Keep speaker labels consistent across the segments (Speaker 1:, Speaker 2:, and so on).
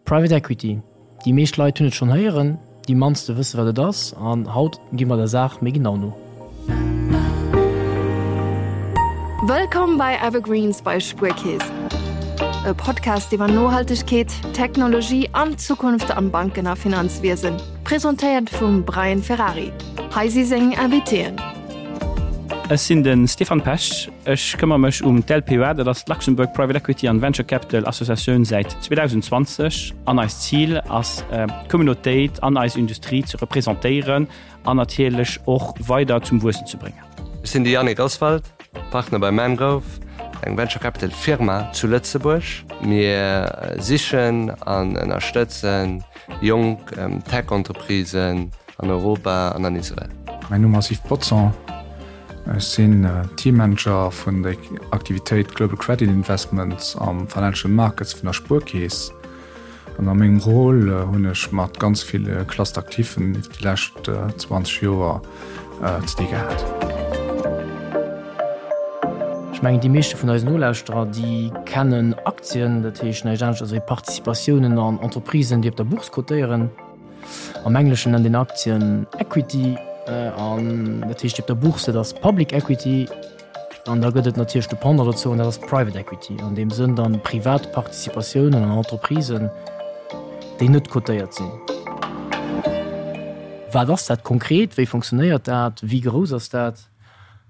Speaker 1: Private Equity, déi meescht Leit hunn et schonn héieren, déi mannste wësse wat et ass an haut gi mer der Saach méi genau no.
Speaker 2: Wëllkomm bei Evergreens bei Spuerkeess, e Podcast iwwer Nohaltegkeet, Technologie an d'Zukunft am Banken a Finanzwiesen, presentéiert vum Brian Ferrari. Hei si seng Invitéen.
Speaker 3: Ech sinn de Stéphane Pesch, ech këmmer mech um d'LPEA, dat ass d'Luxembourg Private Equity and Venture Capital Associatioun säit 2020 an eist Zil ass d'Communautéit an eis Industrie ze representéieren an natierlech och weider zum Wuessen ze bréngen.
Speaker 4: Ech sinn de Yannick Oswald, Partner bei Mangrove, eng Venture Capital Firma zu Lëtzebuerg. Mir sichen an ënnerstëtzen jonk Tech-Entreprisen an Europa an an Israel.
Speaker 5: Mäin Numm ass Yves Potzon, ech sinn Teammanager vun der Aktivitéit Global Credit Investments am Financial Markets vun der Spuerkeess. An a mengem Rôle hunn ech mat ganz ville Cluster Actifen iwwer déi lescht 20 Joer ze di gehat.
Speaker 1: Ech mengen, déi meeschte vun eisen Nolauschterer, déi kennen Aktien, dat heescht näischt anescht wéi Participatiounen an Entreprisen, déi op der Bourse cotéieren. Am Engleschen nennt een Aktien Equity an dat heescht op der Bourse, dat ass Public Equity. An da gëtt et natierlech de Pendant dozou an dat ass Private Equity, an deem Sënn dann privat Participatiounen an Entreprisen, déi net cotéiert sinn. Wat ass dat konkret? Wéi funktionéiert dat? Wéi grouss ass dat?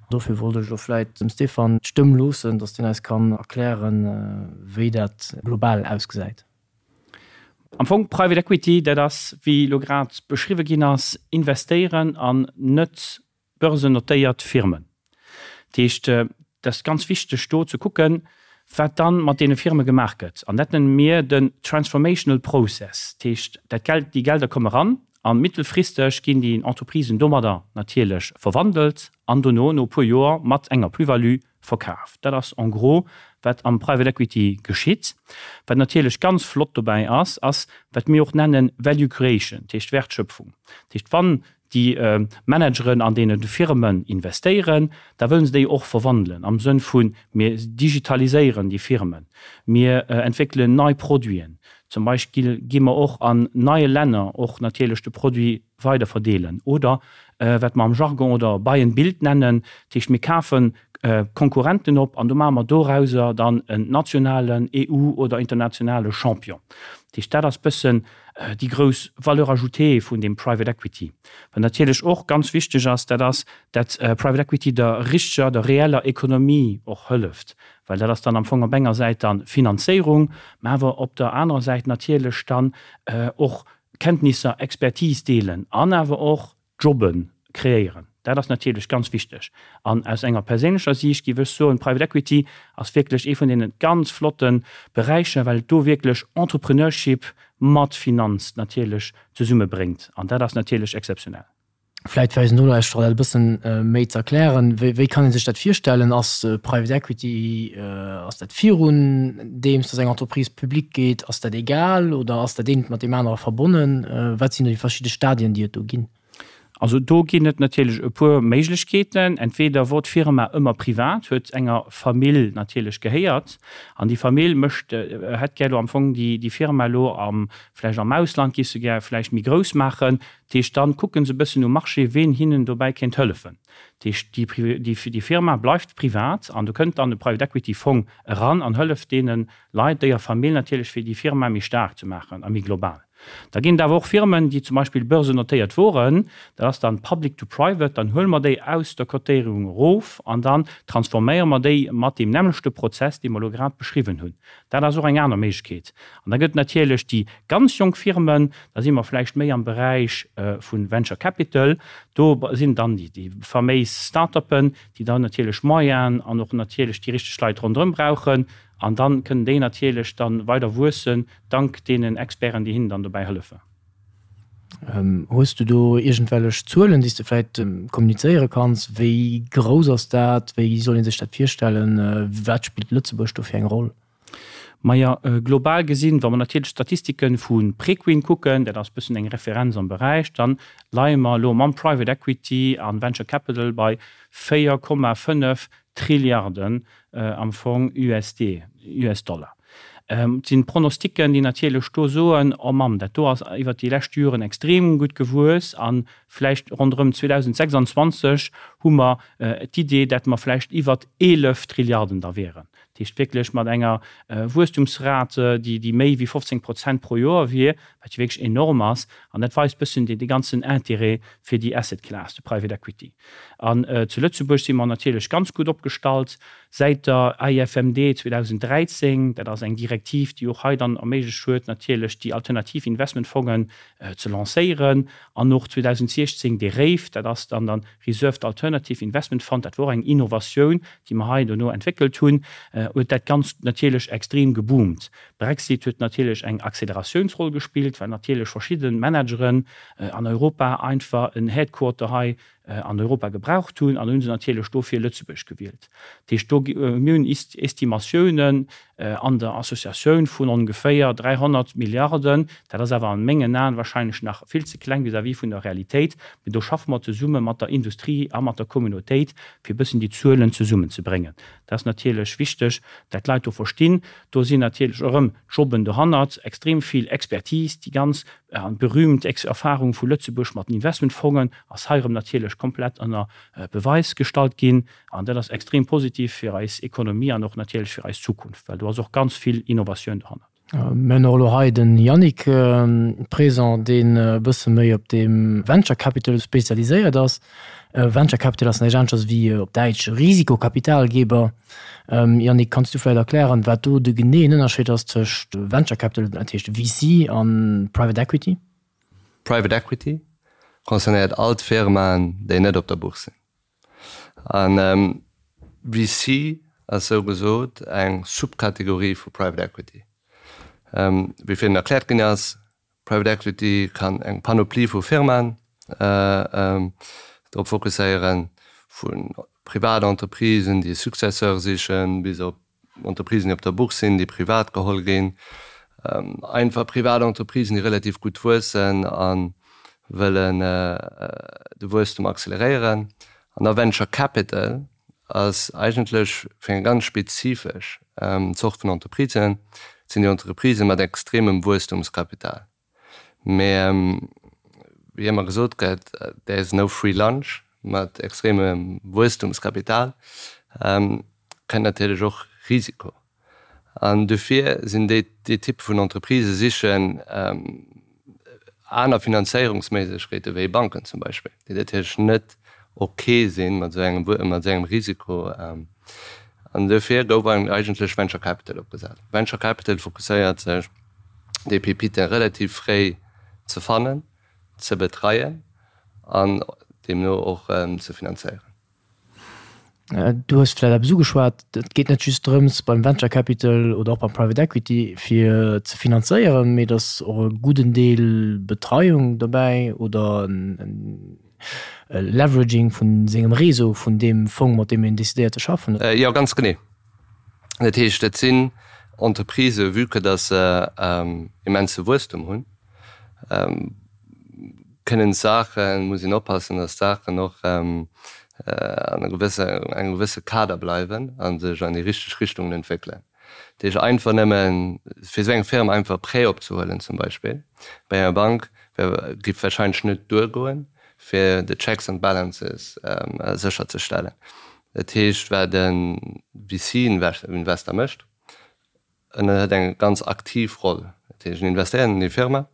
Speaker 1: Dofir wollt ech elo vläit dem Stéphane d'Stëmm loossen, datt deen eis kann erklären, wéi dat global ausgesäit.
Speaker 3: Am Fong Private Equity, dat ass, wéi elo grad beschriwwe ginn ass, investéieren an net börsennotéiert Firmen. Dat heescht, et ass ganz wichteg do ze kucken, wat dann mat deene Firme gemaach gëtt. An dat nenne mir den transformational process. Dat heescht, dat Geld, déi Gelder komme ran a mittelfristeg ginn déi Entreprisen domadder natierlech verwandelt an dono, no e puer Joer, mat enger Plus-value verkaf. Dat ass en gros, wat am Private Equity geschitt. Wat natierlech ganz flott dobäi ass, ass, wat mir och nennen Value Creation, dat heescht Wertschöpfung. Dat heescht, wann déi Manageren an deene Firmen investéieren, da wëllen se déi och verwandelen am Sënn vu mir digitaliséieren déi Firmen, mir entwéckelen nei Produiten, zum Beispill gi mer och an neie Länner och natierlech de Produit weider verdeelen oder wat mer am Jargon oder buy and build nennen, dat heescht mir kafe Konkurrenten op an do maache mer dorauser dann en nationalen, EU oder internationale Champion. Dat heescht dat ass bëssen déi grouss Valeur ajoutée vun deem Private Equity. Wat natierlech och ganz wichteg ass, dat ass, dat Private Equity der richteger, der reeller Ekonomie och hëlleft, well dat ass dann am Fong op enger Säit dann Finanzéierung, mä awer op der anerer Säit natierlech dann och Kenntnisser, Expertise deelen an awer och Jobbe kreéieren. Dat ass natierlech ganz wichteg. An aus enger perséinlecher Siicht géif ech soen, Private Equity ass wierklech ee vun deene ganz flotte Beräicher, well et do wierklech Entrepreneurship mat Finanz natierlech zesummebréngt. An dat ass natierlech exzeptionell.
Speaker 1: Vläit fir eisen Nolauschterer dat e bëssen méi ze erklären, Wéi kann ee sech dat virstellen? Ass Private Equity, ass dat virun deems datt eng Entreprise public geet? Ass dat egal oder ass dat eent mat deem anere verbonnen? Wat sinn do déi verschidde Stadien, déi et do ginn?
Speaker 3: Also do ginn et natierlech e puer Méiglechkeeten. Entweder wor d'Firma ëmmer privat, huet enger Famill natierlech gehéiert an déi Famill mécht, hätt gär elo am Fong déi déi Firma elo am, vläicht am Ausland géif se gär vläicht méi grouss maachen. Dat heescht, dann kucke se e bëssen um Marché, ween hinnen dobäi kéint hëllefen. Dat heescht, déi déi Firma bleift privat an do kënnt dann e Private Equity Fong eran an hëlleft deene Leit, déier Famill natierlech, fir déi Firma méi staark ze maachen a méi global. Da ginn et awer och Firmen, déi zum Beispill börsennotéiert woren, dat ass dann public to private, dann huele mer déi aus der Cotéierung erof an dann transforméiere mer déi mat deem nämmlechte Prozess, dee mer elo grad beschriwwen hunn. Dat ass och eng aner Méiglechkeet. An da gëtt et natierlech déi ganz jonk Firmen, da si mer vläicht méi am Beräich vu Venture Capital, do sinn dann déi faméis Start-uppen, déi dann natierlech Moyenen an och natierlech déi richteg Leit ronderëm brauchen. An dann kënnen déi natierlech dann weider wuessen, dank deenen Experten, déi hinnen dann dobäi hëllefen.
Speaker 1: Hues du do iergendwellech Zuelen, déi s de vläit kommunizéiere kanns? Wéi grouss ass dat? Wéi soll ee sech dat virstellen? Wat spillt Lëtzebuerg do fir eng Roll?
Speaker 3: Maja, global gesinn, wa mer natierlech d'Statistike vu Preqin kucken, dat ass e bëssen eng Referenz am Beräich, dann leie mer elo mam Private Equity a Venture Capital bei 4,5 Trilliarden am Fong USD, US-Dollar. Et sinn Pronosticken, déi natierlech do soen, Oh Mamm, dat do ass iwwert déi lescht Joren extrem gutt gewuess a vläicht ronderëm 2026 hu mer d'Idee, dat mer vläicht iwwert 11 Trilliarden da wieren. Dat heescht wierklech mat enger Wuesstumsrate, déi méi wéi 15 Prozent pro Joer wier, wat jo wierklech enorm ass. An dat weist bëssen dee ganzen Intérêt fir déi Asset Class, de Private Equity. An zu Lëtzebuerg si mer natierlech ganz gutt opgestallt säit der AIFMD 2013. Dat ass eng Direktiv, déi och hei dann erméiglecht huet, natierlech déi alternativ Investmentfongen ze lancéieren. An och 2016 de RAIF, dat ass dann de Reserved Alternative Investment Fund, dat wor och eng Innovatioun, déi mer hei dono entwéckelt hunn, huet dat Ganzt natierlech extrem geboomt. Brexit huet natierlech eng Acceleratiounsroll gespillt, well natierlech verschidde Manageren an Europa einfach en Headquarter hei an Europa gebraucht hunn an hu se natierlech dofir Lëtzebuerg gewielt. Dat heescht, do, mir hunn Estimatiounen an der Associatioun vun ongeféier 300 Milliarden. Dat ass awer an mengen Aen wahrscheinlech nach vill ze kleng vis-à-vis vun der Realitéit. Mee do schaffe mer zesumme mat der Industrie a mat der Communautéit, fir e bëssen déi Zuelen zesummenzebréngen. Dat ass natierlech wichteg, dat d'Leit do verstinn. Do sinn natierlech erëm Jobben dohannert, extrem vill Expertise, déi ganz berühmt Erfahrung vu Lëtzebuerg mat den Investmentfongen ass hei erëm natierlech komplett ënner Beweis gestallt ginn. An dat ass extrem positiv fir eis Ekonomie an och natierlech fir eis Zukunft, well do ass och ganz vill Innovatioun dohannert.
Speaker 1: Mir hunn och elo hei den Yannick présent, deen e bësse méi op deem Venture Capital spezialiséiert ass. Venture Capital ass näischt aneschters wéi op Däitsch Risikokapitalgeber. Yannick, kanns du vläicht erklären, wat do de geneeën Ënnerscheed ass tëscht Venture Capital, dat heescht VC, a Private Equity?
Speaker 4: Private Equity concernéiert all d'Firmaen, déi net op der Bourse sinn. An VC ass sou gesot eng Subkategorie vu Private Equity. Wéi virun erkläert ginn ass, Private Equity kann eng Panoplie vu Firmaen drop fokusséieren, vu privat Entreprisen, déi e Successeur sichen, bis op Entreprisen, déi op der Bourse sinn, déi privat geholl ginn, einfach privat Entreprisen, déi relativ gutt wuessen a wëllen de Wuesstum acceleréieren. An da Venture Capital ass eigentlech fir eng ganz spezifesch Zort vun Entreprisen, dat sinn déi Entreprisë mat extremem Wuesstumskapital. Mä wéi ëmmer gesot gëtt, there is no free lunch, mat extremem Wuesstumskapital kënnt natierlech och Risiko. An dofir sinn déi dee Typ vun Entreprisë sichen aner Finanzéierungsméiglechkeete wéi Banken zum Beispill, déi natierlech net ok sinn mat esou engem mat esou engem Risiko. An dofir gouf eigentlech Venture Capital opgesat. Venture Capital fokusséiert sech déi Pépiten relativ fréi ze fannen, ze betreien an deemno och ze finanzéieren.
Speaker 1: Du hues vläicht eppes ugeschwat, Et geet net just drëms beim Venture Capital oder och beim Private Equity fir ze finanzéieren, mee et ass och e gudden Deel Betreiung dobäi oder e Leveraging vu sengem Réseau, vun deem Fong, mat deem een decidéiert ze schaffen.
Speaker 4: Jo, ganz genee. Dat heescht, et sinn Entreprisë, vue que dass se immense Wuesstum hunn, kënnen d'Saachen, muss een oppassen, dass d'Saachen och an e gewësse, engem gewësse Kader bleiwen a sech an déi richteg Richtungen entwéckelen. Dat heescht, einfach nëmme fir esou eng Firma einfach e Prêt opzehuelen zum Beispill bei enger Bank, wär, géif wahrscheinlech net duergoen, fir de Checks and Balances sécherzestellen. Dat heescht, wat e VC-Investor mécht, en huet eng ganz aktiv Roll. Dat heescht, en investéiert an déi Firma,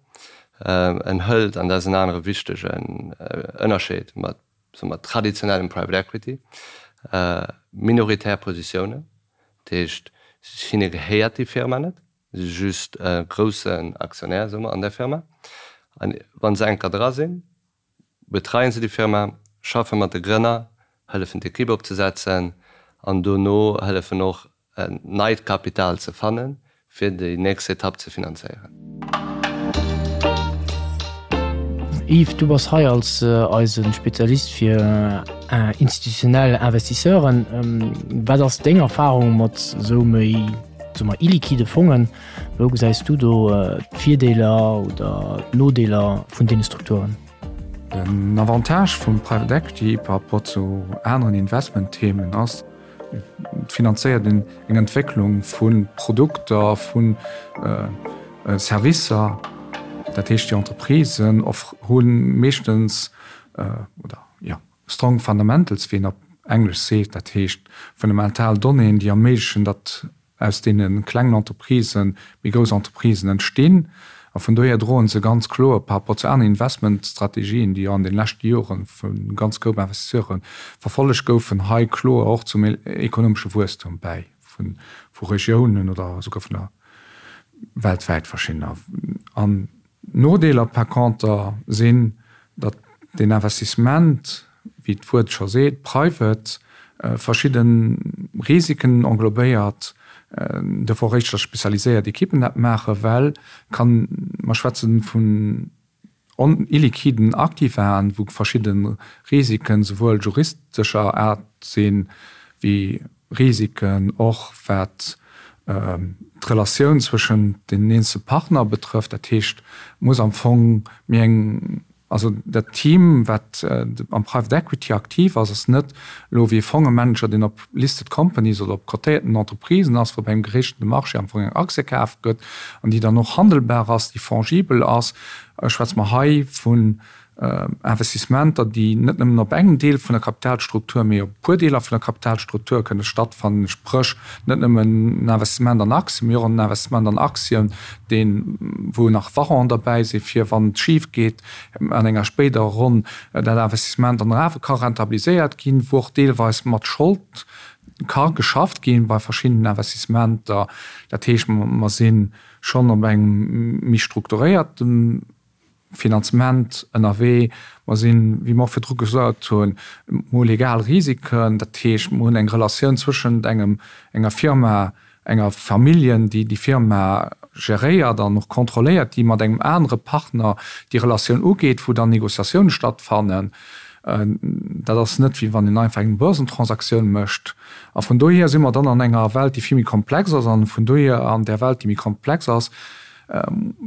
Speaker 4: en hëlt, an dat ass en anere wichtegen Ënnerscheed mat, soe mer, traditionellem Private Equity, minoritär Positiounen. Dat heescht, hinne gehéiert déi Firma net, si si just e groussen Aktionär, soe mer, an där Firma. A wa se eng Kéier dra sinn, betreien se déi Firma, schaffe mat de Grënner, hëllefen d'Ekipp opzesetzen an dono hëllefen och neit Kapital ze fannen, fir déi nächst Etapp ze finanzéieren.
Speaker 1: Yves, du bass hei als eise Spezialist fir institutionell Investisseuren. Wat ass deng Erfarung mat esou méi, soe mer, illiquide Fongen? Wou gesäis du do d'Virdeeler oder d'Nodeeler vun deene Strukturen?
Speaker 5: Den Avantage vum Private Equity par rapport zu aneren Investmentthemen ass, finanzéiert een eng Entwécklung vu Produkter, vu Servicer. Dat heescht, déi Entreprisen hu meeschtens, oder jo, strong fundamentals, wéi een op Englesch seet, dat heescht fundamental Donnéeën, déi erméiglechen, datt aus deene klengen Entreprisë méi grouss Entreprisen entstinn. A vun dohier droen se ganz kloer par rapport zu aneren Investmentstrategien, déi jo an de leschte Jore vu ganz Koup Investisseure verfollegt goufen, hei kloer och zum ekonomesche Wuesstum bäi vu Regiounen oder esouguer vun der weltwäit verschiddener. An Nodeeler par conter sinn, datt deen Investissement, wéi d'Wuert scho seet, private, verschidde Risiken englobéiert, dofir och éischter spezialiséiert Ekippen dat maachen, well kann, mer schwätzen vun illiquiden Aktivaen, wou verschidde Risiken souwuel juristescher Aart sinn, wéi Risiken och wat d'Relatioun zwëschen den eenzele Partner betrëfft. Dat heescht, et muss am Fong méi eng, also dat Team, wat am Private Equity aktiv ass, ass net elo wéi e Fongemanager, deen op listed companies oder op cotéierten Entreprisen ass, wou bei engem geregelten Marché am Fong eng Aktie kaf gëtt an déi dann och handelbar ass, déi fongibel ass. Schwätze mer hei vun Investissementer, déi net nëmmen op engem Deel vun der Kapitalstruktur, mee op e puer Deeler vun der Kapitalstruktur kënne stattfannen, spréch net nëmmen en Investissement an Aktien, mee och en Investissement an Aktien, deen, wou nach Warrant derbäi sinn, fir wann et schif geet an enger spéiderer Ronn, dat Investissement dann awer ka rentabiliséiert ginn, wou och deelweis mat Schold ka geschafft ginn bei verschiddenen Investissementer. Dat heescht, mer si schonn op engem méi strukturéierte Finanzement ënnerwee. Mer sinn, wéi mer och virdru gesot hunn, mer hu legal Risiken, dat heescht, mer hunn eng Relatioun zwëschent engem, enger Firma, enger Familljen, déi déi Firma geréiert an och kontrolléiert, déi mat engem anere Partner déi Relatioun ugeet, wou dann Négociatioune stattfannen. Dat ass net, wéi wann een einfach eng Börsentransaktioun mécht. A vun dohier si mer dann an enger Welt, déi vill méi komplex ass. An vun dohier an där Welt, déi méi komplex ass,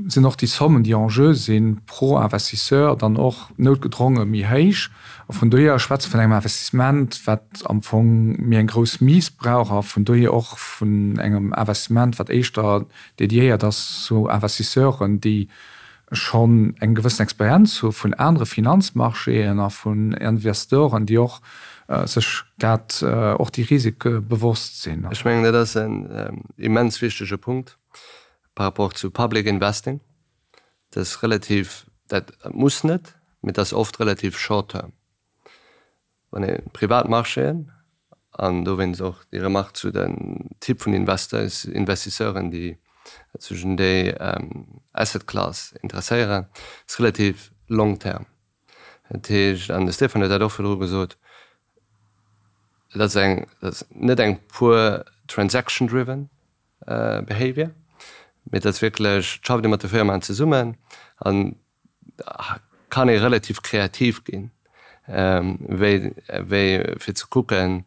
Speaker 5: sinn och déi Sommen, déi en jeu sinn, pro Investisseur dann och noutgedronge méi héich. A vun dohier schwätze vun engem Investissement, wat am Fong méi eng grouss Mise brauch a vun dohier och vun engem Investissement, wat éischter dédiéiert ass zu Investisseuren, déi schonn eng gewëssen Experienz hu vun anere Finanzmarchéen a vun Investoren, déi och sech dat, och déi Risike bewosst sinn.
Speaker 4: Ech mengen, dat ass en immens wichtege Punkt. Par rapport zu Public Investing, dat ass relativ, dat muss net, mee dat ass oft relativ short term. Wann ee privat Marchéen, an dowéinst och déi Remarque zu den Typ vun Investors, Investisseuren, déi sech un déi Asset Class interesséieren, ass relativ long term. Dat heescht, an de Stéphane huet dat och virdru gesot, dat ass eng, dat ass net eng pur transaction driven Behavior, mee et ass wierklech, et schafft ee mat de Firmaen zesummen an kann ee relativ kreativ ginn, wéi wéi fir ze kucken,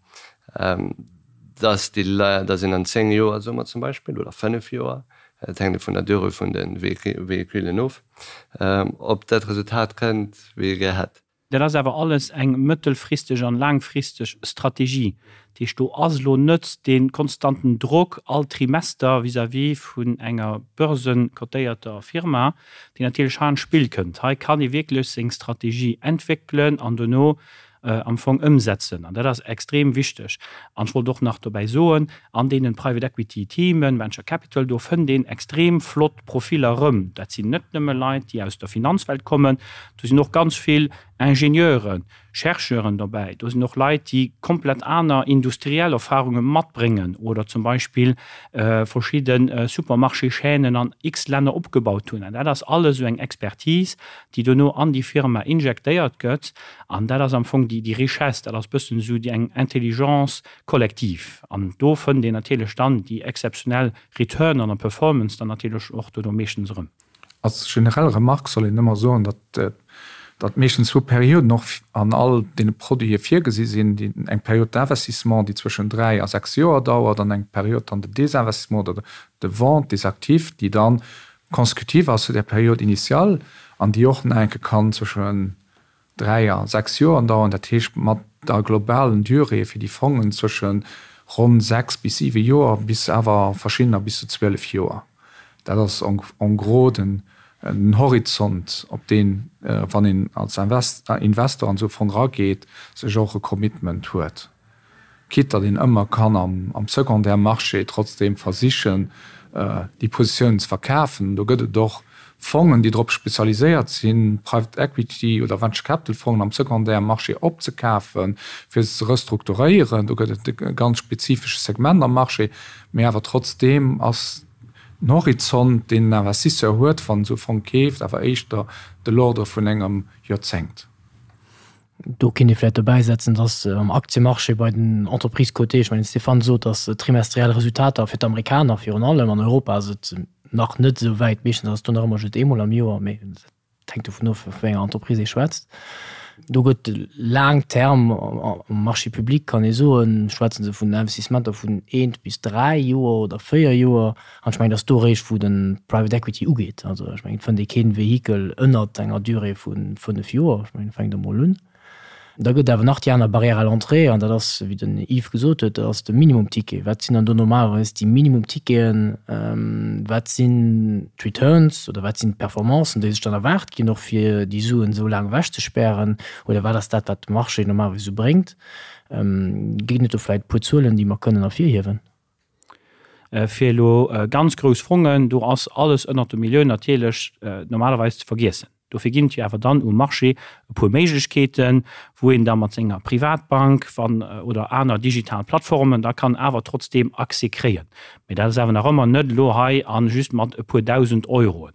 Speaker 4: dass déi Leit, dass een an 10 Joer, soe mer zum Beispill, oder 5 Joer, et hänkt vun der Durée vun de Véhiculen of, op dat Resultat kënnt, wéi ee gär hätt.
Speaker 3: Dat ass awer alles eng mëttelfristeg an laangfristeg Strategie. Dat heescht, do ass elo net dee konstanten Drock all Trimester vis-à-vis vun enger börsenkotéierter Firma, deen natierlech hei an d'Spill kënnt. Hei kann ee wierklech seng Strategie entwéckelen an dono am Fong ëmsetzen. An dat ass extrem wichteg. An ech wollt och nach dobäi soen, an deenen Private Equity Teamen, Venture Capital, do fënnt een extrem flott Profiller erëm. Dat sinn net nëmme Leit, déi aus der Finanzwelt kommen, do sinn och ganz vill Ingenieuren, Chercheuren dobäi, do sinn och Leit, déi komplett aner industriell Erfahrunge matbréngen oder zum Beispill verschidde Supermarché-Chaînen an x Länner opgebaut hunn. An dat ass alles esou eng Expertise, déi dono an déi Firma injektéiert gëtt. An dat ass am Fong déi Richesse, dat ass bëssen esou déi eng Intelligence collective. An do fënnt een natierlech dann déi exzeptionell Return an Performance dann natierlech och dono meeschtens erëm.
Speaker 5: Als generell Remarque soll een ëmmer soen, datt datt meeschtens zwou Perioden och an all deene Produite virgesi sinn, déi eng Période d'investissement, déi zwëschen 3 a 6 Joer dauert, an eng Période dann de désinvestissement oder de vente des actifs, déi dann consécutive ass zu där Période initiale an déi och nach enke kann zwëschen 3 a 6 Joer dauern. Dat heescht mat der globalen Durée fir déi Fongen zwësche. ronn 6 bis 7 Joer bis awer verschiddener bis zu 12 Joer. Dat ass en gros den Horizont, op deen, wann een als Investor an esou e Fong erageet, sech och e Commitment huet. Quitte datt een ëmmer kann am Secondaire Marché trotzdeem versichen, déi Positiounen ze verkafen. Do gëtt et och Fongen, déi drop spezialiséiert sinn, Private Equity oder Venture Capital Fongen am Secondaire Marché opzekafen, fir se ze restrukturéieren. Do gëtt et e ganz spezifesche Segment am Marché. Mee awer trotzdeem ass den Horizont, deen en Investisseur huet, wann en esou e Fong keeft, awer éischter de l'ordre vun engem Joerzéngt.
Speaker 1: Do kéint ee vläicht dobäisetzen, dass am Aktiemarché bei den Entreprises cotées, ech mengen, de Stéphane sot, dass trimestriell Resultater fir d'Amerikaner virun allem, an Europa ass et nach net esou wäit, meeschtens ass et do nach ëmmer just eemol am Joer, mee dat hänkt dovun of, vu wéi enger Entreprise ee schwätzt. Do gëtt laang Term am Marché public, kann ee soen, schwätze se vun Investissementer vun eent bis dräi Joer oder véier Joer. An ech mengen, et ass do eréischt, wou de Private Equity ugeet. Also ech mengen, et fënnt ee kee Vehikel ënnert enger Durée vu fënnef Joer. Ech mengen, fänkt emol un. Da gëtt et awer nach déi aner Barrière à l'entrée, an dat ass, wéi den Yves gesot huet, dat ass de Minimumticket. Wat sinn dann do normalerweis déi Minimumticketen? Wat sinn d'Returns oder wat sinn d'Performancen, déi sech dann erwaart ginn, och fir déi Suen esou laang ewechzespären? Oder wat ass dat, wat de Marché normalerweis esou bréngt? Ginn et do vläicht e puer Zuelen, déi mer kënnen ervirhiewen?
Speaker 3: Fir elo ganz grouss Fongen, do ass alles ënnert der Millioun natierlech normalerweis ze vergiessen. Dofir ginn et jo awer dann um Marché e puer Méiglechkeeten, wou een da mat senger Privatbank wann oder aner digital Plattformen da kann awer trotzdeem Accès kréien. Mee dat ass awer nach ëmmer net elo hei a just mat e puer 1.000 Euroen.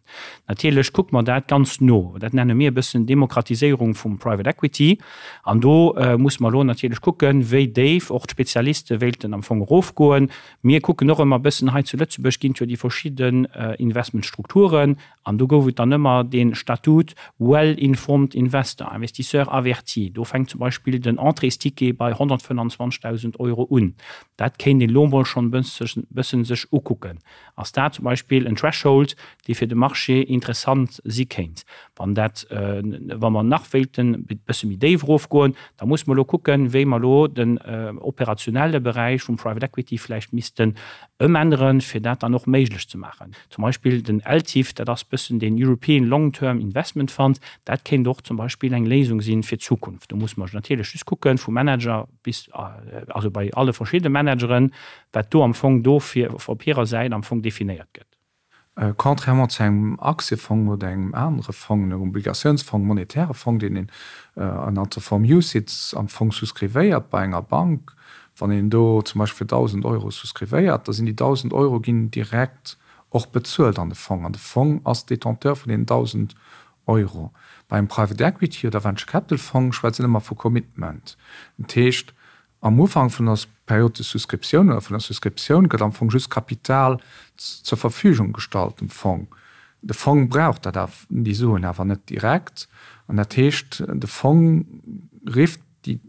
Speaker 3: Natierlech kucke mer dat ganz no. Dat nenne mir e bëssen Demokratiséierung vum Private Equity. An do musse mer elo natierlech kucken, wéi déif och d'Spezialiste wéilten am Fong erofgoen. Mir kucken och ëmmer e bëssen, hei zu Lëtzebuerg ginn et jo déi verschidden Investmentstrukturen an do gouf et dann ëmmer dee Statut well-informed investor, investisseur averti. Do fänkt zum Beispill den Entréesticket bei 125.000 Euro un. Dat kéint een elo emol schonn e bëssen sech ukucken. Ass dat zum Beispill en Threshold, dee fir de Marché interessant si kéint? Wann dat, wa mer nach wéilten e bësse méi déif erofgoen, da musse mer elo kucken, wéi mer elo den operationelle Beräich vum Private Equity vläicht missten ëmänneren, fir dat dann och méiglech ze maachen. Zum Beispill den ELTIF, dat ass bëssen deen European Long Term Investment Fund, dat kéint och zum Beispill eng Léisung si fir d'Zukunft. Do musse mer natierlech just kucken, vum Manager bis, also bei alle verschiddene Manageren, wat do am Fong do fir op hirer Säit am Fong definéiert gëtt.
Speaker 5: Contrairement zu engem Aktiefong oder engem anere Fong, engem Obligatiounsfong, monetäre Fong, deen een ënnert der Form UCITS am Fong souscrivéiert bei enger Bank, wann een do zum Beispill fir 1.000 Euro souscrivéiert, da sinn déi 1.000 Euro ginn direkt och bezuelt an de Fong an de Fong ass Détenteur vun deenen 1.000 Euro. Bei engem Private Equity oder Venture Capital Fong schwätzt een ëmmer vu Commitment. Dat heescht, am Ufank vun der Période de souscription oder vun der Souscriptioun gëtt am Fong just Kapital zur Verfügung gestallt dem Fong. De Fong brauch dat awer, déi Suen awer net direkt. An dat heescht, de Fong rifft déi,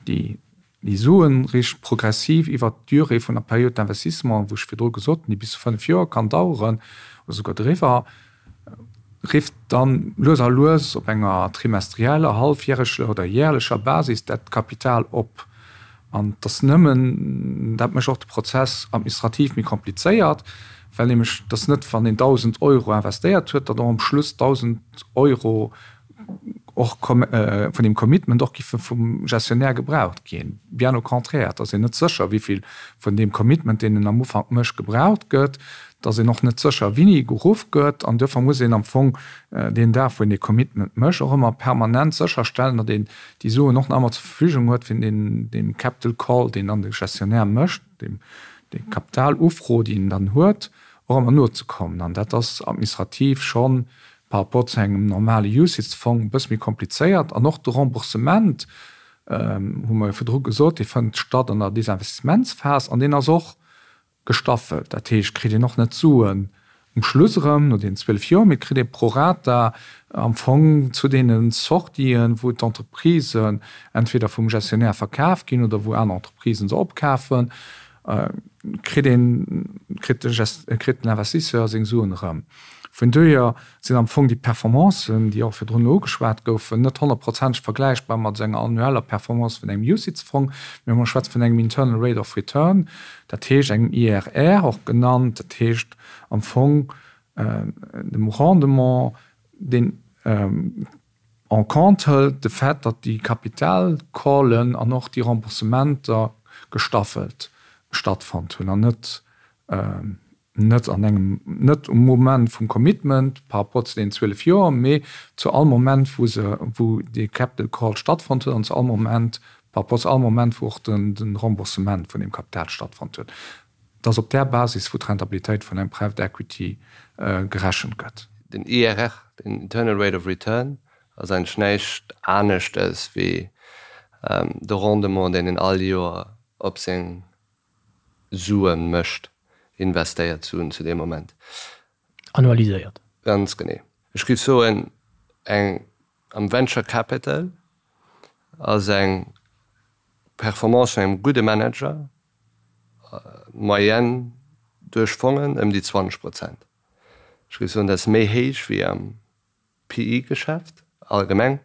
Speaker 5: déi Déi Suen riicht progressiv iwwert d'Durée vun der Période d'investissement, wou ech virdru gesot hunn, déi bis zu 5 Joer kann daueren oder souguer driwwer, rifft dann lues a lues op enger trimestrieller, hallfjäreger oder jährlecher Basis dat Kapital op. An et ass nëmmen, dat mécht och de Prozess administrativ méi komplizéiert, well nämlech et ass net, wann een 1.000 Euro investéiert huet, datt och am Schluss 1.000 Euro och vun deem Commitment och giffe vum Gestionnaire gebraucht ginn. Bien au contraire, et ass een net sécher, wéi vill vun deem Commitment, deen en am Ufank mécht, gebraucht gëtt. Et ass een och net sécher, wéini geruff gëtt. An duerfir muss een am Fong deen Dag, wou een dee Commitment mécht, och ëmmer permanent sécherstellen, datt een déi Suen och nach ëmmer zur Verfügung huet, fir deen deem Capital Call, deen dann de Gestionnaire mécht, deem déi Kapitalufro, déi en dann huet, och ëmmer nozekommen. An dat ass administrativ schonn par rapport zu engem normale UCITS-Fong e bësse méi komplizéiert. An och de Remboursement, hu mer jo virdru gesot, dee fënnt statt an der Desinvestisementsphas an deen ass och gestaffelt. Dat heescht, kritt een och net d'Suen um Schluss erëm no deenen 12 Joer, mee et kritt ee pro rata am Fong zu deene Sortien, wou d'Entreprisen entweder vum Gestionnaire verkaf ginn oder wou aner Entreprisen se opkafen, kritt een, kritt de Gest, kritt den Investisseur seng Suen erëm. Vun dohier sinn am Fong déi Performancen, déi och virdrun ugeschwat goufen, net honnertprozenteg vergläichbar mat esou enger annueller Performance vun engem UCITS-Fong, mee mer schwätze vun engem Internal Rate of Return, dat heescht engem IRR och genannt, dat heescht am Fong dem Rendement, deen en compte hëlt de Fait, datt déi Kapitalcallen an och déi Remboursementer gestaffelt stattfonnt hunn an net net an engem, net um Moment vum Commitment par rapport zu deenen 12 Joer, mee zu all Moment, wou se, wou dee Capital Call stattfonnt huet an zu all Moment, par rapport zu all Moment, wou och den, de Remboursement vun deem Kapital stattfonnt huet. Et ass op där Basis, wou d'Rentabilitéit vun engem Private Equity gerechent gëtt.
Speaker 4: Den IRR, den Internal Rate of Return, ass eigentlech näischt aneschtes wéi de Rendement, deen een all Joer op seng Sue mécht, investéiert Suen zu deem Moment.
Speaker 1: Annualiséiert.
Speaker 4: Ganz genee. Ech géif soen, eng am Venture Capital ass eng Performance vun engem gudde Manager, Moyenne duerch Fongen ëm déi 20 Prozent. Ech géif soen, dat ass méi héich wéi am PE-Geschäft allgemeng.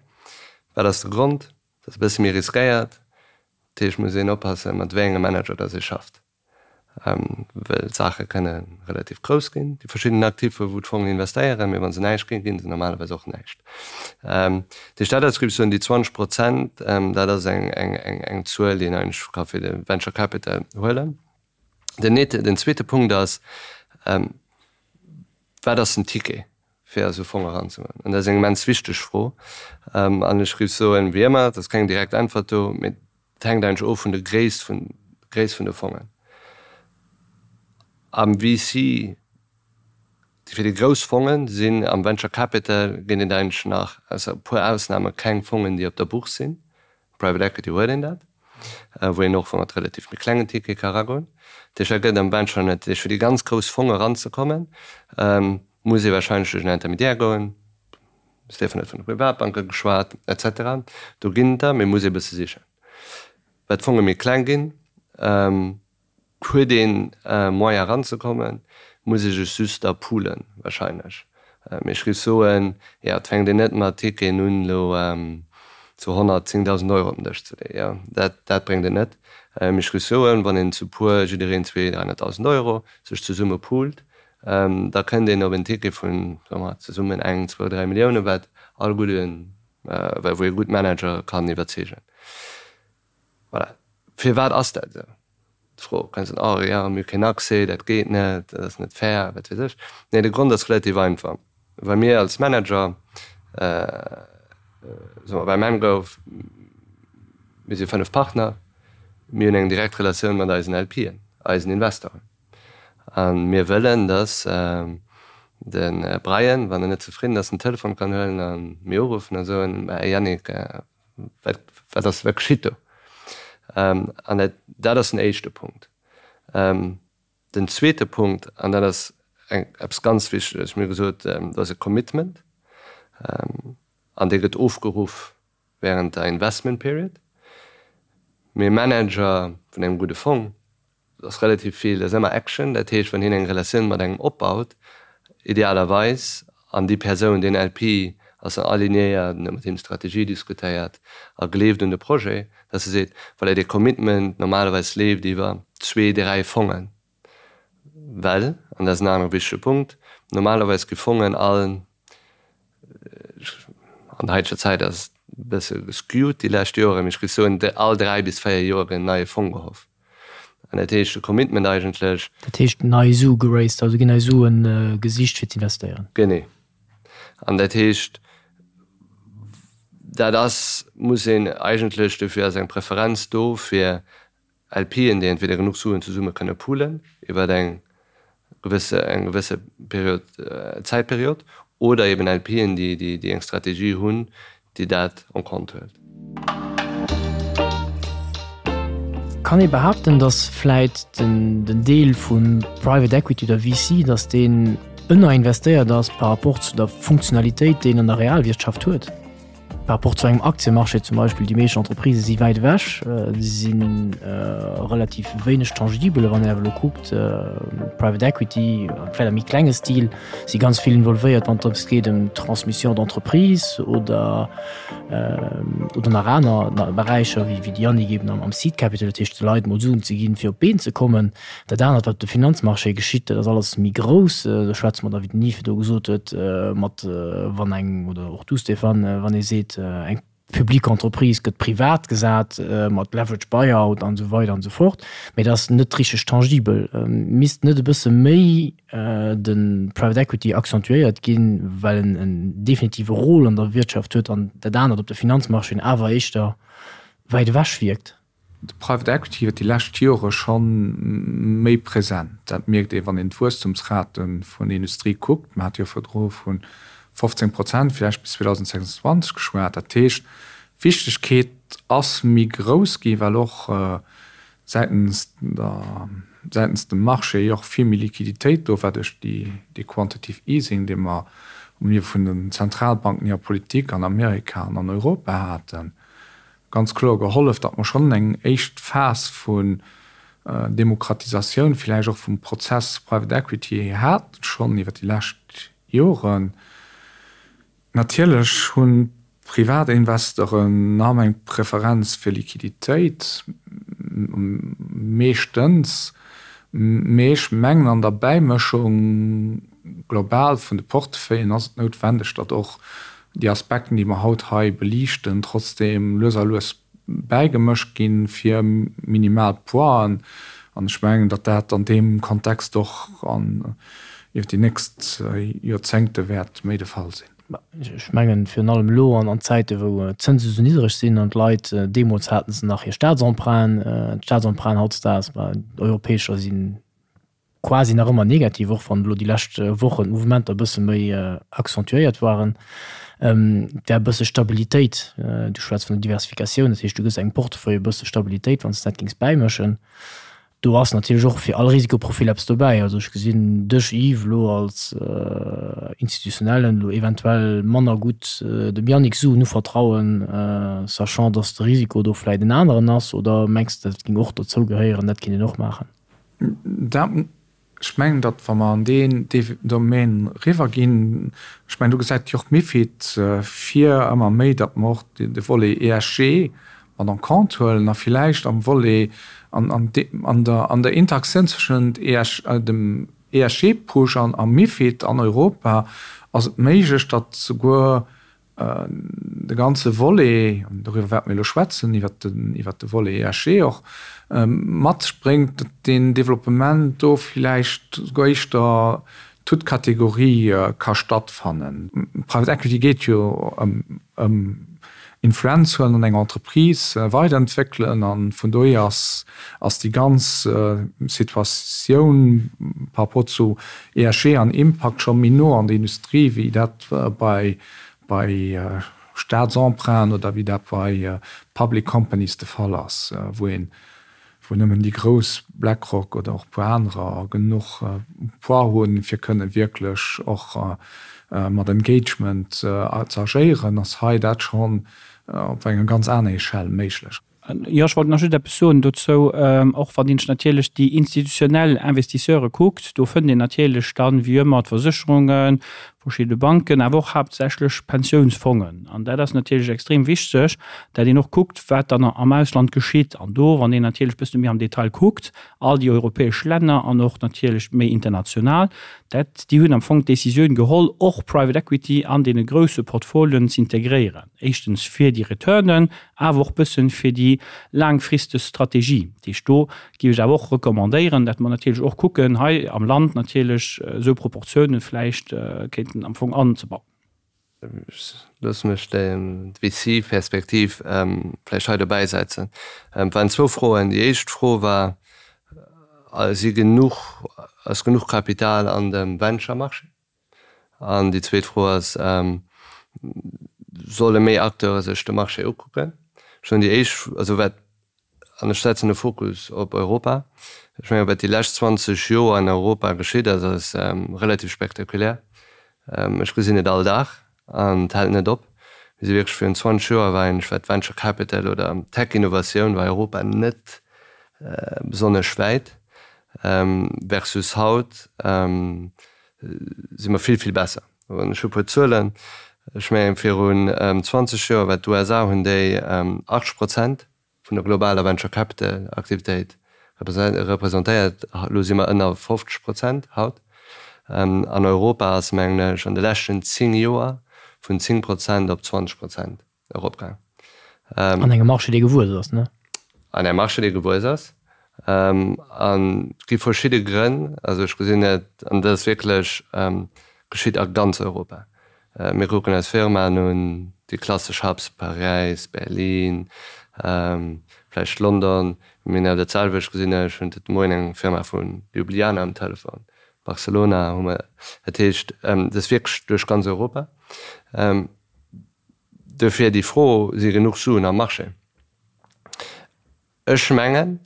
Speaker 4: Wat ass de Grond? Dat ass e bësse méi riskéiert. Dat heescht, et muss een oppassen, mat wéi engem Manager dass ee schafft, well d'Saache kënne relativ grouss ginn, déi verschidden Activen, wou d'Fongen investéieren, mee wa se näischt ginn, gi se normalerweis och näischt. Dat heescht, dat ass, géif ech soen, déi 20 Prozent, dat ass eng Zuel, déi een eigentlech ka fir de Venture Capital huelen. Den den zweete Punkt ass, Wat ass den Ticket, fir a sou Fong eranzegoen? An dat ass eng immens wichteg Fro. An ech géif soen, wéi ëmmer, et ass keng direkt Äntwert do, mee et hänkt eigentlech of vun der Gréisst vun Gréisst vun de Fongen. Am VC, fir déi grouss Fongen sinn am Venture Capital ginn et eigentlech nach, ausser e puer Ausname, keng Fongen, déi op der Bourse sinn. Private Equity huet een dat, wou een och mat relativ méi klengen Tickete ka eragoen. Dat heescht, dat gëtt am Venture net. Dat heescht, fir déi ganz grouss Fonge eranzekommen, muss ee warscheinlech duerch en Intermédiaire goen. De Stéphane huet vun de Privatbanke geschwat, et cetera. Do ginn et der, mee muss ee e bësse sichen. Wat d'Fonge méi kleng ginn, Huet een Moyen eranzekommen, muss ee sech just da poolen wahrscheinlech. Mee ech géif soen, jo, et fänkt een net mat Ticketen un elo zu 110.000 Euro op den Dësch ze leeën, jo, dat dat bréngt et net. Mee ech géif soen, wann een zu puer, jiddereen zwee, 300.000 Euro, sech zesumme poolt, da kënnt een op en Ticket vun, soe mer, zesummen eng, zwou, dräi Millioune, wat all gudden, wou ee gutt Manager kann iwwerzeegen. Voilà. Firwat ass dat esou? D'Fro kënnt dann, oh jo, mir hu keen Accès, dat geet net, dat ass net fair, wat weess ech. Nee, de Grond ass relativ einfach, Well mir als Manager, soe mer bei Mangrove, mir si 5 Partner, mir hunn eng direkt Relatioun mat eisen LPen, eisen Investoren. A mir wëllen, datt de Brian, wann en net zefridden ass, den Telefon kann huelen a mir uruffen a soen, Mä Yannick, Wat, wat ass, wat geschitt do? An dat, dat ass den éischte Punkt. Den zweete Punkt, an dat ass eng, eppes ganz Wichteges, mir hu gesot, do ass e Commitment, an dee gëtt ofgeruff während der Investment Period. Mee e Manager vun engem gudde Fong, Et ass relativ vill, et ass ëmmer Action, dat heescht, wann hien eng Relatioun mat engem opbaut, idealerweis, an déi Persoun, deen LP ass dann alignéiert, en huet mat him d'Strategie diskutéiert a gleeft un de Projet, dass e seet, voilà, dee Commitment normalerweis leeft iwwer zwee, dräi Fongen, well, an dat ass en anere wichtege Punkt, normalerweis gi Fongen all An der haiteger Zäit ass et e bësse geskewt déi lescht Joren, mee ech géif soen, all 3 bis 4 Joer gëtt en neie Fong gehoff. An dat heescht, de Commitment eigentlech.
Speaker 1: Dat heescht, nei Sue geraced, also ginn nei Sue gesicht fir z'investéieren.
Speaker 4: Genee. An dat heescht, dat ass, muss een eigentlech, dofir ass eng Preferenz do fir LPen, déi entweder genuch Suen zesumme kënne poolen iwwer eng gewësse eng gewësse Period, Zäitperiod, oder eben LPen, déi déi eng Strategie hunn, déi dat en compte huelt.
Speaker 1: Kann ee behaapten, datt vläit den den Deel vu Private Equity oder VC, datt deen ënnerinvestéiert ass par rapport zu der Funktionalitéit, déi en an der Realwirtschaft huet? Par rapport zu engem Aktiemarché zum Beispill, déi meescht Entreprisë si wäit ewech, si si relativ wéineg tangibel. Wann een awer elo kuckt, Private Equity, vläicht am méi klenge Stil, si ganz vill involvéiert, wann et drëms geet ëm d'Transmission d'entreprise oder oder nach aner Beräicher, wéi de Yannick eben am Seed Capital, dat heescht de Leit mol Suen ze ginn, fir op d'Been ze kommen. Dat anert, wat op de Finanzmarché geschitt, dat ass alles méi grouss. Do schwätze mer da, wéi den Yves do gesot huet, mat, wann eng, oder och du Stéphane, wann ee seet, eng publique Entreprise gëtt privat gesat mat Leverage Buyout an esou weider an esou fort, mee dat ass net richteg tangibel. Misst net e bësse méi de Private Equity accentuéiert ginn, well en en definitive Rôle an der Wirtschaft huet an dat anert op de Finanzmarchéen awer éischter wäit ewech wierkt?
Speaker 5: De Private Equity huet déi lescht Jore scho méi present. Dat mierkt ee wann een d'Wuesstumsrate vun der Industrie kuckt. Mer hate jo virdru vu 15 Prozent villäicht bis 2026 geschwat. Dat heescht, d'Wichtegkeet ass méi grouss gi well och säitens der, säitens dem Marché jo och vill méi Liquiditéit do war duerch dee Quantitative Easing, dee mer um Niveau vun den Zentralbanken hirer Politik an Amerika an an Europa haten. ganz kloer gehollef, datt mer schonn eng éischt Phas vun Demokratisatioun villäicht och vum Prozess Private Equity haten, schonn iwwer déi lescht Joren. Natierlech hunn d'Privatinvestoren nach ëmmer eng Preferenz fir Liquiditéit, meeschtens, mee ech mengen an der Bäimëschung global vun de Portefeuillen ass et noutwendeg, datt och déi Aspekten, déi mer haut hei beliichten, trotzdeem lues a lues bäigemëscht ginn, fir minimal Pointen. An ech mengen, datt dat an deem Kontext och an iwwer déi nächst Joerzéngte wäert méi de Fall sinn.
Speaker 1: Ech mengen, virun allem elo an Zäiten, wou d'Zënse sou niddreg sinn an d'Leit, deemools hate se nach hir Staatsemprunten, d'Staatsemprunten hautdesdaags, d'europäescher sinn quasi nach ëmmer negativ, och wann elo déi lescht Wochen d'Mouvementer e bësse méi accentuéiert waren. Et wär e bësse Stabilitéit, du schwätz vun der Diversifikatioun, dat heescht du gëss engem Portefeuille e bësse Stabilitéit, wann s de dat géings bäimëschen. Do ass natierlech och fir all Risikoprofil eppes dobäi. Also ech gesinn dech Yves elo als Institutionellen elo eventuell manner gutt dem Yannick Suen uvertrauen, sachant datt de Risiko do vläit en aneren ass, oder mengs de dat géing och dozou gehéieren, dat kéint een och maachen?
Speaker 5: Dat, ech mengen, datt wa mer an deen Domaine eriwwerginn, ech mengen, do gesäit jo och d'MiFID vir ëmmer méi, datt mer och de Volet ESG mat en compte huelen a villäicht am Volet, an der Interaktioun zwëschent dem ESG-Push an MiFID an Europa ass et méiglech, datt souguer De ganze Volet, an doriwwer wäerte mir elo schwätzen, iwwert de Volet ESG och, mat sech bréngt, datt deen Developpement do villäicht souguer éischter toute catégorie ka stattfannen. Private Equity geet jo ëm Influenz huelen an eng Entreprise weiderentwéckelen, a vun dohier ass déi ganz Situatioun par rapport zu ESG an Impakt scho méi no an der Industrie wéi dat bei bei Staatsemprunten oder wéi dat bei Public Companies de Fall ass, wou een, wou nëmmen déi grouss, BlackRock oder och e puer anerer, genuch Poids hunn, fir kënne wierklech och mat Engagement ze agéieren, ass hei dat schonn op enger ganz aner Echelle méiglech.
Speaker 3: Jo, ech wollt nach just eppes soen dozou. Och wann een sech natierlech déi institutionell Investisseure kuckt, do fënnt een natierlech dann, wéi ëmmer, d'Versécherungen, verschidde Banken, awer och haaptsächlech Pensiounsfongen. An dat ass natierlech extrem wichteg, dat een och kuckt, wat dann am Ausland geschitt. An do, wann een natierlech e bësse méi am Detail kuckt, all déi europäesch Länner an och natierlech méi international, dat, déi hunn am Fong d'Décisioun geholl, och Private Equity an deene grousse Portfolioen z'integréieren, éischtens fir déi Returnen, awer och bëssen fir déi laangfristeg Strategie. Dat heescht, do géif ech awer och recommandéieren, dat mer natierlech och kucken, hei am Land natierlech esou Proportiounen vläicht kéinten am Fong anzebauen.
Speaker 4: Ech loosse mech d'VC-Perspektiv vläicht hei dobäi setzen. Et waren zwou Froen. Déi éischt Fro war, Si genuch, ass genuch Kapital an dem Venture-Marché? An déi zweet Fro ass, Solle méi Acteure sech de Marché ukucken? Ech soen déi éischt, also wat, an ech setzen de Fokus op Europa, ech mengen, wat déi lescht 20 Joer an Europa geschitt ass, ass relativ spektakulär. Ech gesinn et all Dag an et hält net op. Mir si wierklech virun 20 Joer war eigentlech wat Venture Capital oder Tech-Innovatioun war Europa net besonnesch wäit versus haut si mer vill, vill besser. An ech hu e puer Zuelen. Ech mengen virun 20 Joer war d'USA hunn déi 80 Prozent vun der globaler Venture Capital Aktivitéit representéiert. Elo si mer ënner 50 Prozent haut. An Europa ass, mengen ech, an de leschten 10 Joer vun 10 Prozent op 20 Prozent eropgaang.
Speaker 1: An engem Marché, dee gewuess ass, ne?
Speaker 4: An engem Marché, dee gewuess ass. An et gi verschidde Grënn. Also ech gesinn et, an dat ass wierklech geschitt a ganz Europa. Mir kucken eis Firmaen un, déi klassesch Hubs, Paräis, Berlin, vläicht London. Mir hunn awer dat selwecht gesinn, ech hunn de Moien eng Firma vu Ljubljana um Telefon, Barcelona hu mer. Dat heescht, et ass wierklech duerch ganz Europa. Dofir déi Fro, Si genuch Suen am Marché? Ech mengen,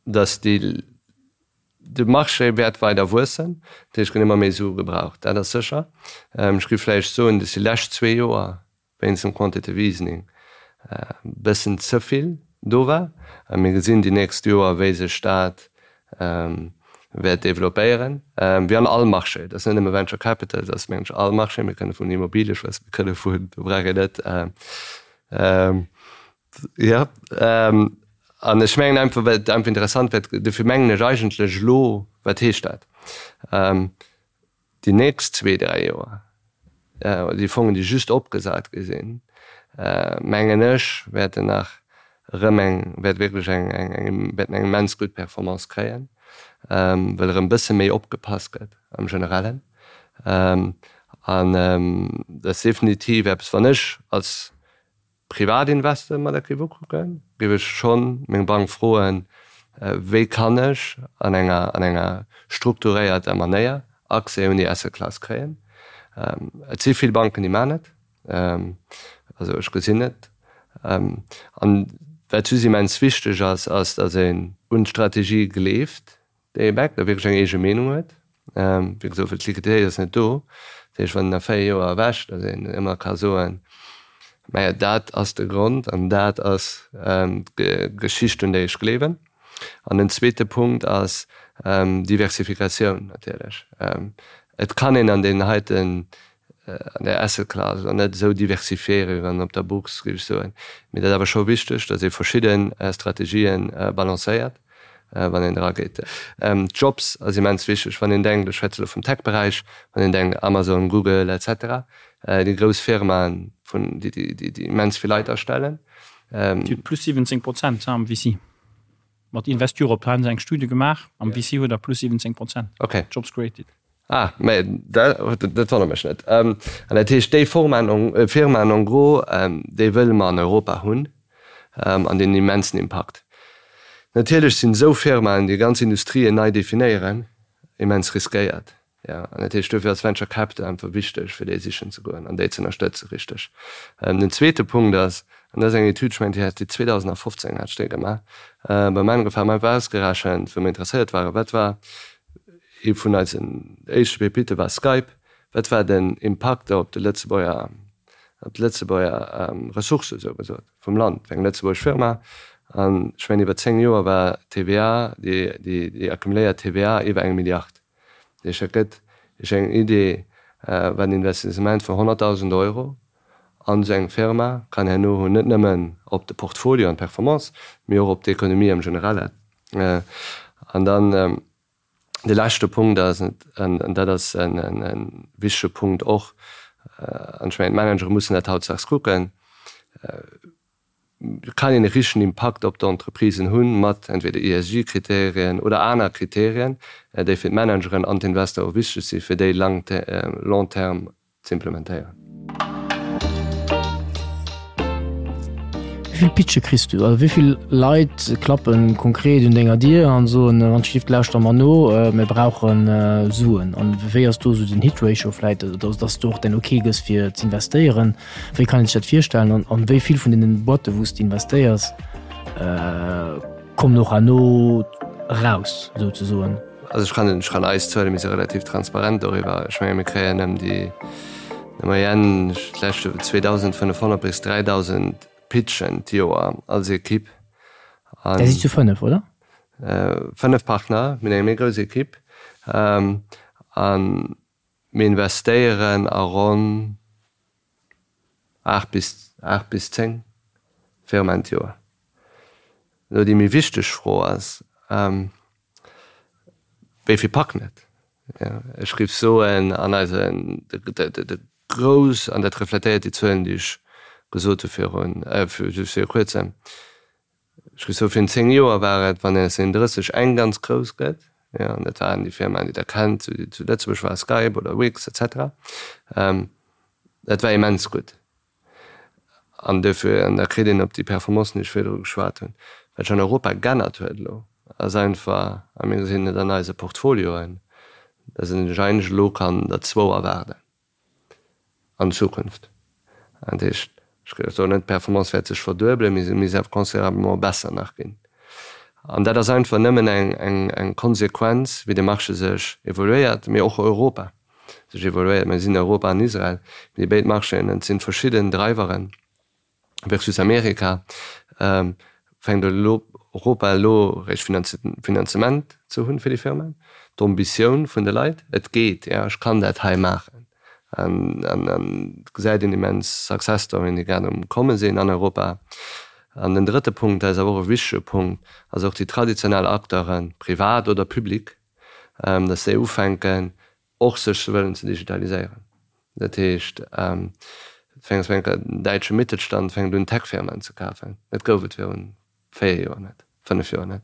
Speaker 4: dass déi, de Marché wäert weider wuessen, dat heescht, et ginn ëmmer méi Sue gebraucht, dat ass sécher. Ech géif vläicht soen, dass déi lescht zwee Joer wéinst dem Quantitative Easening e bëssen ze vill do war. A mir gesinn déi nächst Joer, wéi sech dat wäert developpéieren, wéi an all Marché. Dat ass net nëmme Venture Capital, dat ass, mengen ech, all Marché. Mir kënne vun Immobilie schwätzen, mir kënne vun, do brauch een net, Jo, an ech mengen einfach, well et einfach interessant wär, dofir mengen ech eigentlech elo, wat heescht dat, déi nächst zwee, dräi Joer, déi Fongen, déi just opgesat gi sinn, mengen ech, wäerten nach erëm eng, wäert wierklech eng, eng, wäerten eng immens gutt Performance kréien, well erëm e bësse méi opgepasst gëtt am Generellen. An dat ass definitiv eppes, wann ech als Privatinvestor mer dat géif ukucken, géif ech schonn meng Bank froen, wéi kann ech an enger an enger strukturéierter Manéier Accès un déi Asset Class kréien. Et si vill Banken, déi maachen et, also ech gesinn et. An wat just immens wichteg ass, ass, datt een un d'Strategie gleeft, Dee Back da wierklech eng eege Meenung huet. Wéi gesot, well d'Liquiditéit ass net do. Dat heescht, wann een a 4 Joer erwächt, datt een ëmmer ka soen, Maja, dat ass de Grond an dat ass d'Geschicht, un déi ech gleewen. An den zweete Punkt ass Diversifikatioun natierlech. Et kann een an deenen heiten an der Asset Class an net esou diversifiéiere wéi wann op der Bourse, géif ech soen. Mee dat ass awer scho wichteg, datt ee verschidde Strategien balancéiert, wann een erageet. Jobs ass immens wichteg, wann een denkt, ech schwätze elo vum Tech-Beräich, wann een denkt Amazon, Google et cetera, déi grouss Firmaen, vun déi déi immens vill Leit astellen.
Speaker 3: Déi huet plus 17 Prozent am VC. Mat Invest Europe hu se eng Studie gemaach, am VC huet der plus 17 Prozent Jobs created.
Speaker 4: Ah, mä dat wonnert mech net. An dat heescht, déi Firmaen en gros, déi wëlle mer an Europa hunn an deen immensen Impakt. Natierlech sinn esou Firmaen, déi ganz Industrien nei definéieren, immens riskéiert. Jo, an dat heescht, dofir ass Venture Capital einfach wichteg, fir déi sichen ze goen an déi ze ënnerstëtzen, richteg. Den zweete Punkt ass, an dat ass eng Etüd, ech mengen, déi hat déi 2015 hat ech déi gemaach, beim Angefaangen, mer einfach ausgerechent, wou mer interesséiert waren, wat war Ee vun eisen éischte Pepitte war Skype. Wat war den Impakt op de Lëtzebuerger, op d'Lëtzebuerger Ressourcë sou gesot vum Land? Eng lëtzebuergesch Firma an ech mengen iwwer 10 Joer war d'TVA, déi, déi accumuléiert TVA iwwer eng Milliard. Dat heescht, dat gëtt Iech eng Idee, wat en Investissement vun 100.000 Euro an esou eng Firma kann herno hunn, net nëmmen op de Portfolio an d'Performance, mee och op d'Ekonomie am Generellen. An dann De leschte Punkt ass, an dat ass e wichtege Punkt och, an ech mengen d'Managere mussen dat hautdesdaags kucken, Kann een e richtegen Impakt op d'Entreprisen hunn mat entweder ESG-Kriterien oder aner Kriterien, déi fir d'Manageren an d'Investoren wichteg sinn, fir déi long terme z'implementéieren.
Speaker 1: Wéi vill Pitche kriss du? Also wéi vill Leit klappen konkret un denger Dier an soen, wann d'Stift lauschter mer no, mir brauchen Suen? An wéi ass do esou den Hit Ratio vläit, dass du och den Ok gëss fir z'investéieren? Wéi kann een sech dat virstellen? An wéi vill vun deenen Boîten wou s de investéiers kommen och herno eraus souzesoen?
Speaker 4: Also ech kann, ech kann eis Zuele, mir si relativ transparent doriwwer. Ech menge mir kréien ëm déi. Der Moyenne d'lescht Joer 2.500 bis 3.000 Pitchen d'Joer als Ekipp.
Speaker 1: Där sidd zu 5, oder?
Speaker 4: 5 Partner, mir hunn eng méi grouss Ekipp a mir investéieren a ronn 8 bis 8 bis 10 Firmaen d'Joer. Elo déi méi wichteg Fro ass, Wéi vill packen et? Ech géif soen, an eisen, de grouss, an dat refletéiert déi Zuelen, déi ech gesot hu virun, just viru kuerzem, ech géif soen, virun 10 Joer war et, wann een aus den 30 eng ganz grouss gëtt, jo, an dat waren déi Firmaen, déi Der kennt, déi zu Lëtzebuerg waren, Skype oder Wix et cetera, dat war immens gutt. An duerfir, an da kritt een op déi Performancen, déi ech virdru geschwat hunn, wat sech an Europa g'ännert huet elo, ass einfach, a mir gesinn et an eise Portfolioen, dass een sech eigentlech elo kann der zwou erwaarden an Zukunft. Dat heescht, ech soen net, d'Performance wäert sech verduebelen, mee se misst awer considérablement besser nach ginn. An dat ass einfach nëmmen eng Konsequenz, wéi de Marché sech evoluéiert, mee och Europa. sech evoluéiert. Mir sinn Europa an Israel, déi béid Marchéen, et sinn verschidden Driveren versus Amerika, fänkt elo Europa elo réischt Finanzement ze hunn fir déi Firmen, d'Ambitioun vun de Leit, et geet, jo ech kann dat hei maachen an et gesäit een immens Success Storyen, déi grad um komme sinn an Europa. An den drëtte Punkt, dat ass awer och e wichtege Punkt, ass och déi traditionell Acteuren, privat oder public, dass déi ufänken och sech wëllen ze digitaliséieren. Dat heescht, den däitsche Mittelstand fänkt un Tech-Firmaen ze kafen. Dat gouf et virun 4 Joer net, 5 Joer net.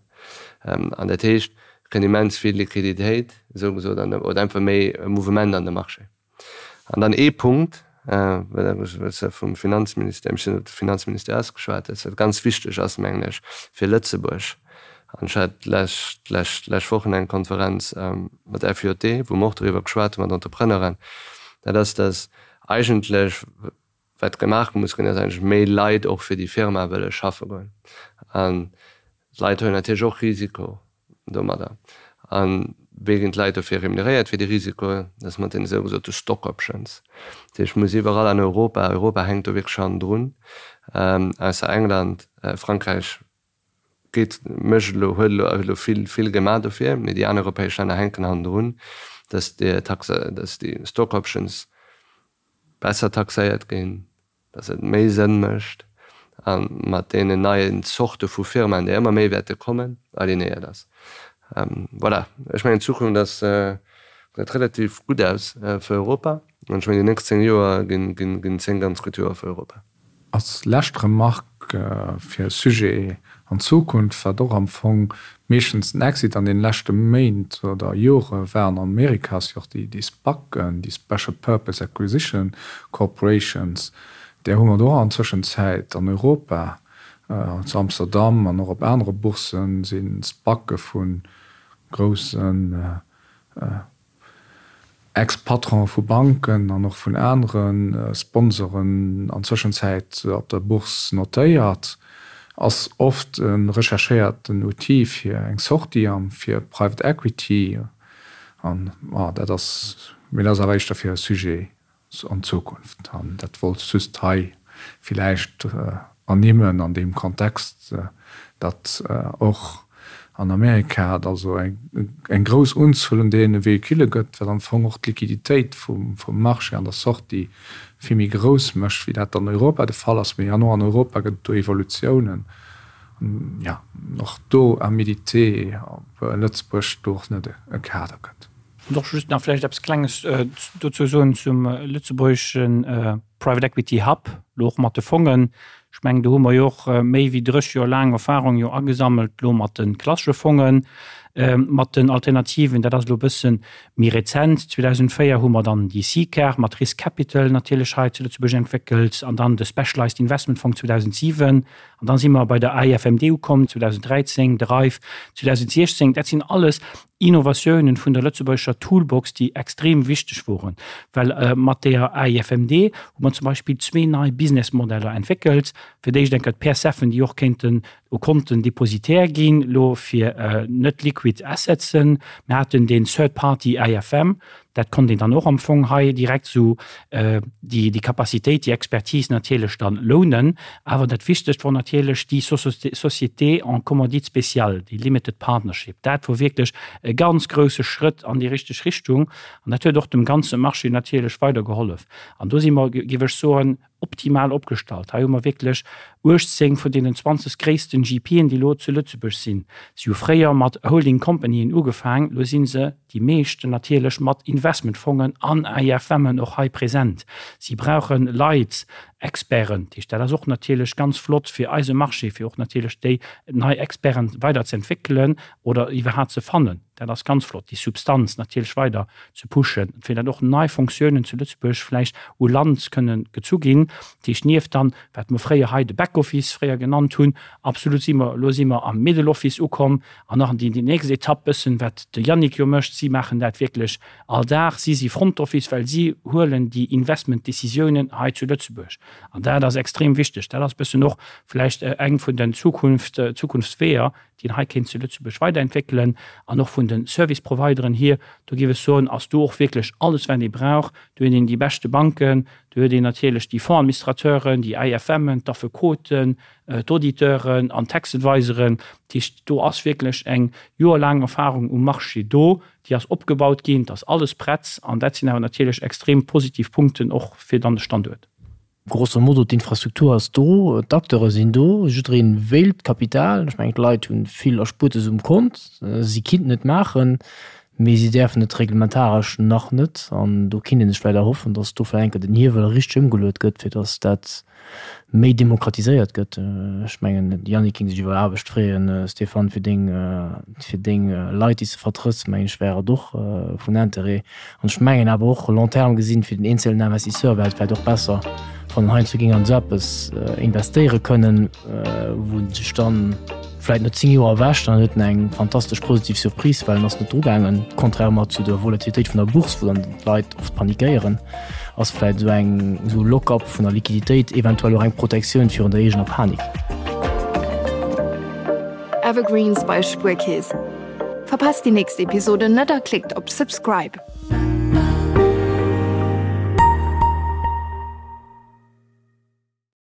Speaker 4: An dat heescht, et kënnt immens vill Liquiditéit, esou gesot, oder einfach méi Mouvement an de Marché. An dann ee Punkt, well s de vum Finanzministère, ech sinn op de Finanzministère ausgeschwat hues, wat ganz wichteg ass, mengen ech, fir Lëtzebuerg, an ech hat d'lescht, d'lescht, d'lescht Wochen eng Konferenz mat FJD, wou mer och doriwwer geschwat hu mat Entrepreneuren, dat ass, dass eigentlech wat gemaach muss ginn, ass eigentlech méi Leit och fir déi Firma wëlle schaffe goen. An d'Leit huelen natierlech och Risiko domadder. A wéi ginn d'Leit dofir remuneréiert fir dee Risiko? Dat ass mat deene sougesote Stock Options. Dat heescht, et muss iwwerall an Europa, Europa hänkt do wierklech hannendrun, ausser England, Frankräich geet, mécht elo, huet elo, huet elo vill, vill gemaach dofir, mee déi aner europäesch Länner hänken hannendrun, dass déi Taxe, dass déi Stock Options besser taxéiert ginn, dass et méi Sënn mécht a mat deenen neien Zorte vu Firmaen, déi ëmmer méi wäerte kommen, alignéiert ass. Voilà, ech mengen d'Zukunft ass, gesäit relativ gutt aus fir Europa an ech mengen déi nächst 10 Joer ginn 10 ganz gutt Joer fir Europa.
Speaker 5: Als lescht Remarque fir e Sujet an Zukunft, wat och am Fong meeschtens den Exit an deene leschte Méint oder Jore war an Amerika, ass jo och déi SPACen, déi Special Purpose Acquisition Corporations. Där hu mer do och an Zwëschenzäit an Europa, zu Amsterdam an och op anere Boursen, si SPACe vu groussen, Ex-Patronen vu Banken an och vun anere Sponsoren an Zwëschenzäit op der Bourse notéiert, ass oft e recherchéierten Outil fir eng Sortie a fir Private Equity. An dat ass, mee dat ass awer éischter fir e Sujet an Zukunft. An dat wollt ech just hei villäicht ernimmen an deem Kontext, datt och an Amerika et also eng grouss Unzuel un deene Véhicule gëtt, wat am Fong och d'Liquiditéit vum Marché an der Sortie vill méi grouss mécht, wéi dat an Europa de Fall ass. Mee an och an Europa gëtt et do Evolutiounen. An jo, och do à méditer, ob Lëtzebuerg do och net e Kader gëtt.
Speaker 3: Wollt och just nach vläicht eppes Klenges dozou soen zum lëtzebuergesche Private Equity Hub, elo och mat de Fongen. Ech mengen, do hu mer jo och méi wéi 30 Joer laang Erfahrung jo agesammelt, elo mat de klassesche Fongen, mat den Alternativen. Dat ass elo e bësse méi rezent. 2004 hu mer dann déi SICAR mat Risk Capital natierlech hei zu Lëtzebuerg entwéckelt an dann de Specialized Investment Fong 2007. An dann si mer bei der AIFMD ukomm 2013, de RAIF 2016. Dat sinn alles Innovatiounen vun der lëtzebuergescher Toolbox, déi extrem wichteg woren, well mat deeër AIFMD hu mer zum Beispill zwee nei Businessmodeller entwéckelt. Fir d'éischt eng Kéier d'PSFen, déi och kéinten u Konten Depositaire ginn, elo fir net liquid. Liquid Assetsen. Mir haten deen Third Party AIFM, dat konnt een dann och am Fong hei direkt esou déi déi Capacitéit, déi Expertise natierlech dann lounen. Awer dat Wichtegst wor natierlech déi Société en commandite spéciale, déi Limited Partnership. Dat wor wierklech e ganz grouse Schrëtt an déi richteg Richtung an dat huet och dem ganze Marché natierlech weidergehollef. An do si mer, géif ech soen, optimal opgestallt. Hei hu mer wierklech 18 vun deenen 20 gréissten GPen, déi elo zu Lëtzebuerg sinn. Si hu fréier mat Holding Companyen ugefaang, elo si se, déi meeschten natierlech, mat Investmentfongen an AIFMen och hei present. Si brauche Leit, Experten. Dat heescht, dat ass och natierlech ganz flott fir eise Marché, fir och natierlech déi nei Experten weider ze entwéckelen oder iwwerhaapt ze fannen. Dat ass ganz flott, déi Substanz natierlech weider ze pushen, fir datt och nei Fonctiounen zu Lëtzebuerg vläicht u Land kënnen gezu ginn. Dat heescht, nieft dann, wat mer fréier hei de Backoffice fréier genannt hunn, absolut si mer, elo si mer am Middle Office ukomm an nach déi nächst Etapp bëssen, wat de Yannick jo mécht, si maachen dat wierklech all Dag, si si Front Office, well si huelen déi Investmentdécisiounen hei zu Lëtzebuerg. An dat ass extrem wichteg. Dat ass bëssen och vläicht eng vun den Zukunft, Zukunftsweeër, déi een hei kéint zu Lëtzebuerg weiderentwéckelen, an och vun de Service Provideren hier, do géif ech soen, ass do och wierklech alles wat ee brauch. Do huet een déi beschte Banken, do huet een natierlech déi Fondsadministrateuren, déi AIFMen, d'Affekoten, d'Auditeuren an d'Tax Adviseren. Dat heescht, do ass wierklech eng joerlaang Erfahrung um Marché do, déi ass opgebaut ginn, et ass alles prett an dat sinn awer natierlech extrem positiv Punkten och fir dann de Standuert.
Speaker 1: Grosso modo, d'Infrastruktur ass do, d'Acteure sinn do, jiddereen wéilt Kapital. Ech mengen, d'Leit hu vill Erspuertes um Kont, si kinnten et maachen, mee si däerfen et reglementaresch nach net. An do kinnt ee sech vläicht erhoffen, datt do vläicht eng Kéier den Hiewel richteg ëmgeluet gëtt, fir datt dat méi demokratiséiert gëtt. Ech mengen, de Yannick géing sech iwwer Aarbecht freeën. Stéphane, fir deng, fir deng Leit, déi s de vertrëtts, mengen ech, wär et och vun Interêt. An ech mengen awer och, long terme gesinn, fir den eenzelnen Investisseur wär et vläicht och besser, wann en heiansdo géing an esou eppes investéiere kënnen, wou en sech dann vläicht no 10 Joer erwächt an huet en eng fantastesch positiv Surprise, well en ass net drugaangen, contrairement zu der Volatilitéit vun der Bourse, wou dann d'Leit oft panikéieren, ass vläicht esou eng esou e Lock-up vun der Liquiditéit eventuell och eng Protektioun virun der eegener Panik.
Speaker 2: Evergreens bei Spuerkeess. Verpasst déi nächst Episode net a klickt op Subscribe.